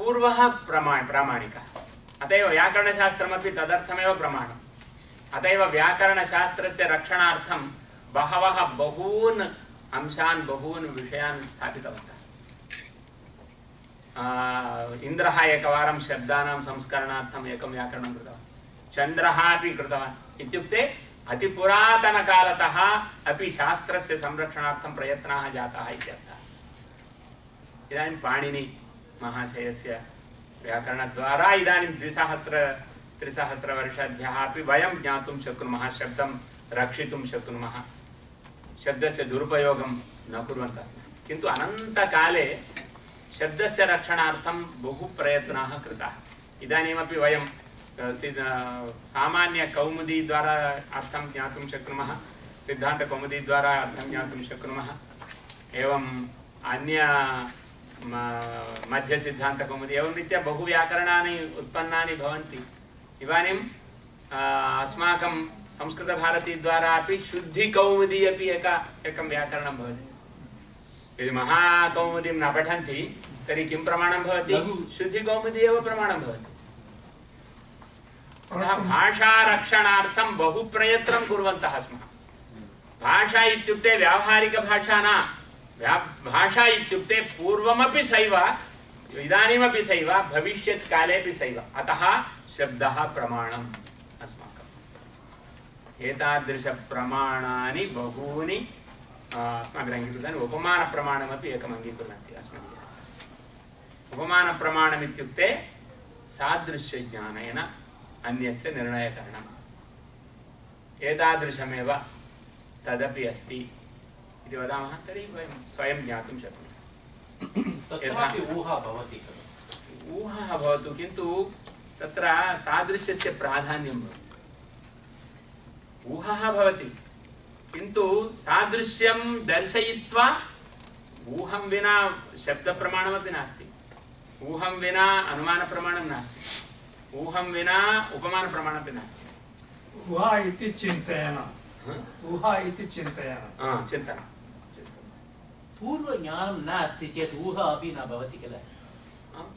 पूर्वः प्रामाणिकः, अत एव व्याकरणशास्त्रमपि तदर्थमेव प्रमाणम्। अत एव व्याकरणशास्त्रस्य रक्षणार्थं बहवः बहून् अंशान् बहून् विषयान् स्थापितवन्तः। इन्द्रः एकवारं शब्दानां संस्करणार्थम् एकं व्याकरणं कृतवान्, चन्द्रः अपि कृतवान्। इत्युक्ते अतिपुरातनकालतः अपि शास्त्रस्य संरक्षणार्थं प्रयत्नाः जाताः इत्यर्थः। इदानीं पाणिनि महाशयस्य व्याकरणद्वारा इदानीं 3,000 वर्षेभ्यः अपि वयं ज्ञातुं शक्नुमः, शब्दं रक्षितुं शक्नुमः, शब्दस्य दुरुपयोगं न कुर्वन्तः स्मः। किन्तु अनन्तकाले शब्दस्य रक्षणार्थं बहु प्रयत्नाः कृताः। इदानीमपि वयं सामान्यकौमुदीद्वारा अर्थं ज्ञातुं शक्नुमः, सिद्धान्तकौमुदीद्वारा अर्थं ज्ञातुं शक्नुमः, एवम् अन्य मध्यसिद्धान्तकौमुदी एवं रीत्या बहु व्याकरणानि उत्पन्नानि भवन्ति। इदानीम् अस्माकं संस्कृतभारतीद्वारा अपि शुद्धिकौमुदी अपि एकं व्याकरणं भवति। यदि महाकौमुदीं न पठन्ति तर्हि किं प्रमाणं भवति? शुद्धिकौमुदी एव प्रमाणं भवति। भाषारक्षणार्थं बहु प्रयत्नं कुर्वन्तः स्मः। भाषा इत्युक्ते व्यावहारिकभाषा न, भाषा इत्युक्ते पूर्वमपि सैव, इदानीमपि सैव, भविष्यत्कालेपि सैव। अतः शब्दः प्रमाणम् अस्माकम्। एतादृशप्रमाणानि बहूनि अस्माभिः अङ्गीकृतानि। उपमानप्रमाणमपि एकम् अङ्गीकुर्वन्ति अस्माभिः। उपमानप्रमाणम् इत्युक्ते सादृश्यज्ञानेन अन्यस्य निर्णयकरणम्। एतादृशमेव तदपि अस्ति इति वदामः तर्हि वयं स्वयं ज्ञातुं शक्नुमः। तत्रापि ऊहा भवति, ऊहा भवतु, किन्तु तत्र सादृश्यस्य प्राधान्यं भवति। ऊहा भवति किन्तु सादृश्यं दर्शयित्वा ऊहं विना शब्दप्रमाणमपि नास्ति, ऊहं विना अनुमानप्रमाणं नास्ति, ऊहं विना उपमानप्रमाणमपि नास्ति। ऊहा इति चिन्तयन, ऊहा इति चिन्तयन, चिन्तनं। पूर्वज्ञानं नास्ति चेत् ऊहा अपि न भवति किल?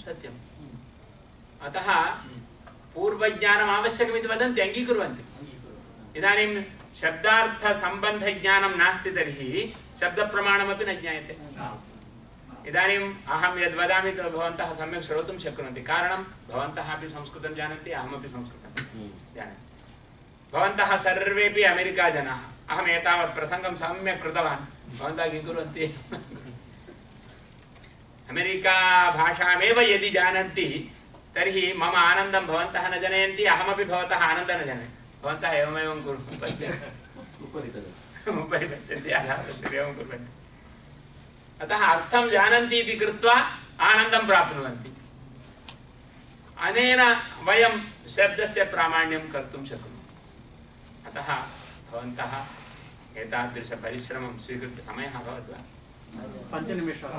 सत्यम्। अतः पूर्वज्ञानम् आवश्यकमिति वदन्ति, अङ्गीकुर्वन्ति। इदानीं शब्दार्थसम्बन्धज्ञानं नास्ति तर्हि शब्दप्रमाणमपि न ज्ञायते। इदानीम् अहं यद् वदामि तद् भवन्तः सम्यक् श्रोतुं शक्नुवन्ति। कारणं भवन्तः अपि संस्कृतं जानन्ति, अहमपि संस्कृतं जानामि। भवन्तः सर्वेपि अमेरिका जनाः, अहम् एतावत् प्रसङ्गं सम्यक् कृतवान्, भवन्तः किं कुर्वन्ति? अमेरिका भाषामेव यदि जानन्ति तर्हि मम आनन्दं भवन्तः न जनयन्ति, अहमपि भवतः आनन्दं न जनयामि। भवन्तः एवमेवं पश्यन्ति, उपरि पश्यन्ति, अधः पश्यन्ति, एवं कुर्वन्ति। अतः अर्थं जानन्ति इति कृत्वा आनन्दं प्राप्नुवन्ति। अनेन वयं शब्दस्य प्रामाण्यं कर्तुं शक्नुमः। अतः भवन्तः एतादृशपरिश्रमं स्वीकृत्य, समयः अभवत् वा? 5 निमेषाः।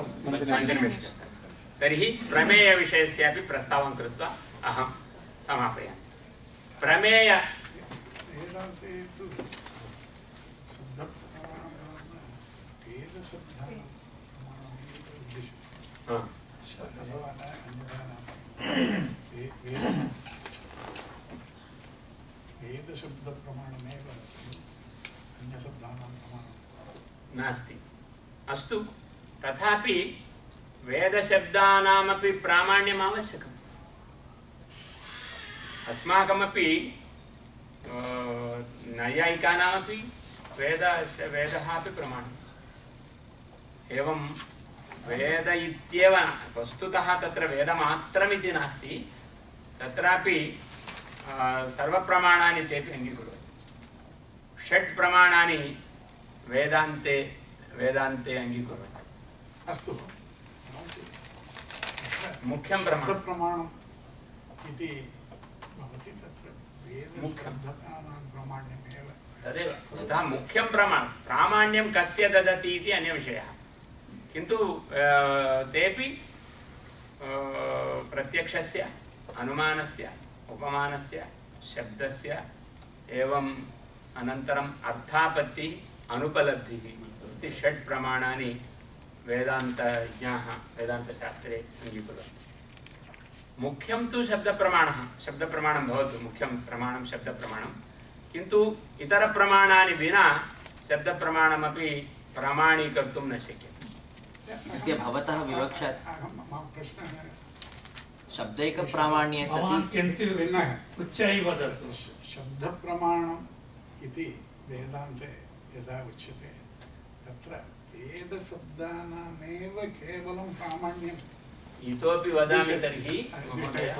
तर्हि प्रमेयविषयस्यापि प्रस्तावं कृत्वा अहं समापयामि। प्रमेय नास्ति। अस्तु, तथापि वेदशब्दानामपि प्रामाण्यम् आवश्यकम्। अस्माकमपि नैयायिकानामपि वेदः अपि प्रमाणम्। एवं वेद इत्येव वस्तुतः तत्र वेदमात्रमिति नास्ति, तत्रापि सर्वप्रमाणानि तेपि अङ्गीकुर्वन्ति। 6 प्रमाणानि वेदान्ते अङ्गीकुर्वन्ति। अस्तु, मुख्यं प्रमाणम् इति भवति, तत्र वेदशब्दानां प्रामाण्यमेव तदेव। यथा मुख्यं प्रामाण्यं कस्य ददति इति अन्यविषयः, किन्तु तेपि प्रत्यक्षस्य, अनुमानस्य, उपमानस्य, शब्दस्य, एवं अनन्तरम् अर्थापत्तिः, अनुपलब्धिः इति 6 प्रमाणानि वेदान्तज्ञाः वेदान्तशास्त्रे अङ्गीकुर्वन्ति। मुख्यं तु शब्दप्रमाणः शब्दप्रमाणं भवतु मुख्यं प्रमाणं शब्दप्रमाणं किन्तु इतरप्रमाणानि विना शब्दप्रमाणमपि प्रमाणीकर्तुं न शक्यते अद्य भवतः विवक्षा मम प्रश्नः शब्दैकप्रामाण्ये सति भवान् किन्तु भिन्नः उच्चैः वदतु शब्दप्रमाणम् इति वेदान्ते यदा उच्यते तत्र वेदशब्दानामेव केवलं प्रामाण्यम् इतोपि वदामि तर्हि महोदय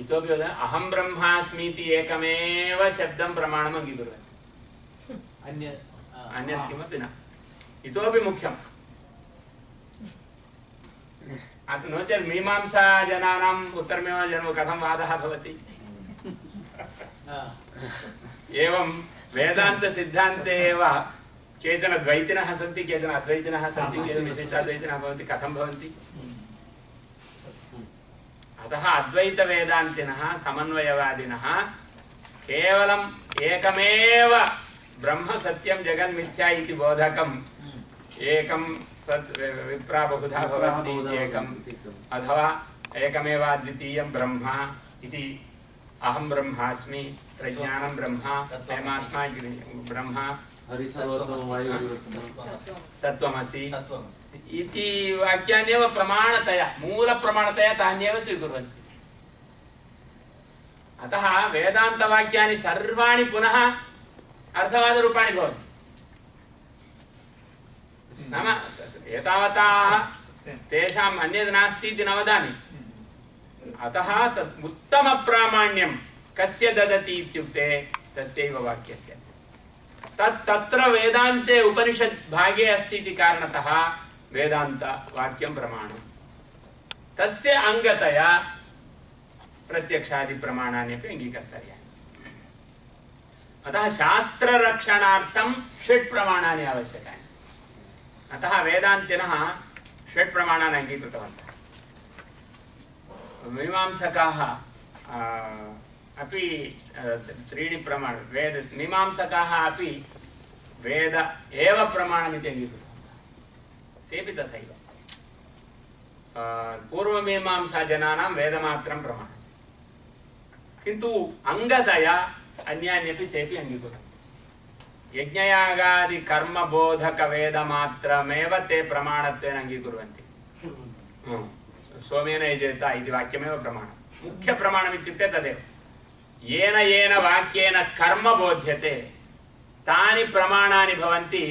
इतोपि वदामि अहं ब्रह्मास्मीति एकमेव शब्दं प्रमाणम् अङ्गीकुर्वन्ति अन्यत् किमपि न इतोपि मुख्यम् नो चेत् मीमांसा जनानाम् उत्तरमीमांसा कथं वादः भवति एवं वेदान्तसिद्धान्ते एव केचन द्वैतिनः सन्ति केचन अद्वैतिनः सन्ति केचन विशिष्टाद्वैतिनः भवन्ति कथं भवन्ति अतः अद्वैतवेदान्तिनः समन्वयवादिनः केवलम् एकमेव ब्रह्म सत्यं जगन्मिथ्या इति बोधकम् एकं तत् विप्रा बहुधा भवन्ति एकम् अथवा एकमेव अद्वितीयं ब्रह्म इति अहं ब्रह्मास्मि प्रज्ञानं ब्रह्म परमात्मा ब्रह्म सत्त्वमसि इति वाक्यान्येव प्रमाणतया मूलप्रमाणतया तान्येव स्वीकुर्वन्ति अतः वेदान्तवाक्यानि सर्वाणि पुनः अर्थवादरूपाणि भवन्ति नाम एतावता तेषाम् अन्यद् नास्ति इति न वदामि अतः तत् उत्तमप्रामाण्यं कस्य ददति इत्युक्ते तस्यैव वाक्यस्य तत्र वेदान्ते उपनिषद् भागे अस्ति इति कारणतः वेदान्तवाक्यं प्रमाणं तस्य अङ्गतया प्रत्यक्षादिप्रमाणानि अपि अङ्गीकर्तव्यानि अतः शास्त्ररक्षणार्थं षट् प्रमाणानि आवश्यकानि अतः वेदान्तिनः षट् प्रमाणानि अङ्गीकृतवन्तः मीमांसकाः अपि त्रीणि प्रमाण वेद मीमांसकाः अपि वेद एव प्रमाणमिति अङ्गीकृतवन्तः तेपि तथैव पूर्वमीमांसाजनानां वेदमात्रं प्रमाणं किन्तु अङ्गतया अन्यान्यपि तेपि अङ्गीकुर्वन्ति यज्ञयागादि कर्मबोधकवेदमात्रमेव ते प्रमाणत्वेन अङ्गीकुर्वन्ति सोमेन यजेत इति वाक्यमेव प्रमाणं मुख्यप्रमाणम् इत्युक्ते तदेव येन येन वाक्येन कर्म बोध्यते तानि प्रमाणानि भवन्ति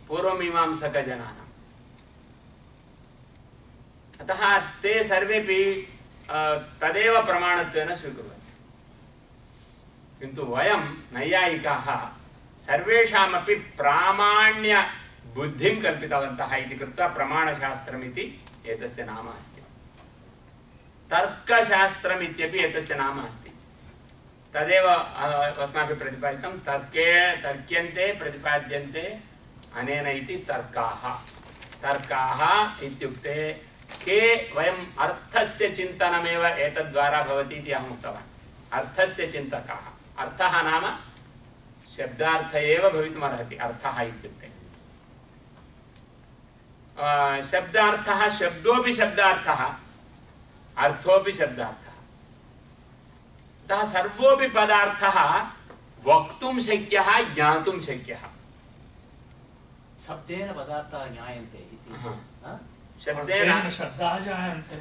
पूर्वमीमांसकजनानाम् अतः ते सर्वेपि तदेव प्रमाणत्वेन स्वीकुर्वन्ति किन्तु वयं नैयायिकाः सर्वेषामपि प्रामाण्य बुद्धिं कल्पितवन्तः इति कृत्वा प्रमाणशास्त्रमिति एतस्य नाम अस्ति तर्कशास्त्रम् इत्यपि एतस्य नाम अस्ति तदेव अस्माभिः प्रतिपादितं तर्क्यन्ते प्रतिपाद्यन्ते अनेन इति तर्काः इत्युक्ते के वयम् अर्थस्य चिन्तनमेव एतद्द्वारा भवति इति अहम् उक्तवान् अर्थस्य चिन्तकाः अर्थः नाम शब्दार्थ एव भवितुमर्हति अर्थः इत्युक्ते शब्दार्थः शब्दोऽपि शब्दार्थः अर्थोऽपि शब्दार्थः अतः सर्वोऽपि पदार्थः वक्तुं शक्यः ज्ञातुं शक्यः शब्देन पदार्थाः ज्ञायन्ते इति शब्देन शब्दाः जायन्ते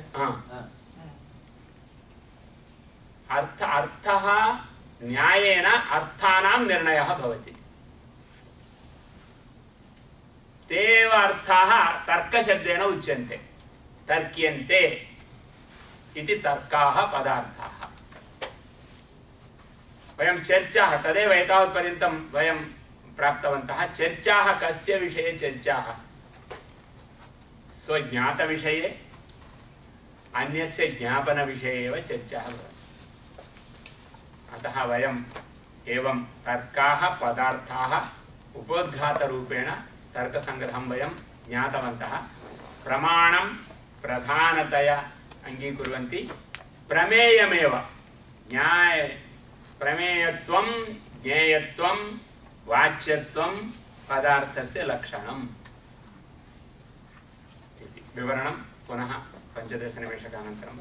अर्थः न्यायेन अर्थानां निर्णयः भवति ते एव अर्थाः तर्कशब्देन उच्यन्ते तर्क्यन्ते इति तर्काः पदार्थाः वयं चर्चाः तदेव एतावत्पर्यन्तं वयं प्राप्तवन्तः चर्चाः कस्य विषये चर्चाः स्वज्ञातविषये अन्यस्य ज्ञापनविषये एव चर्चाः भवन्ति अतः वयम् एवं तर्काः पदार्थाः उपोद्घातरूपेण तर्कसङ्ग्रहं वयं ज्ञातवन्तः प्रमाणं प्रधानतया अङ्गीकुर्वन्ति प्रमेयमेव प्रमेयत्वं ज्ञेयत्वं वाच्यत्वं पदार्थस्य लक्षणम् इति विवरणं पुनः 15 निमेषकानन्तरं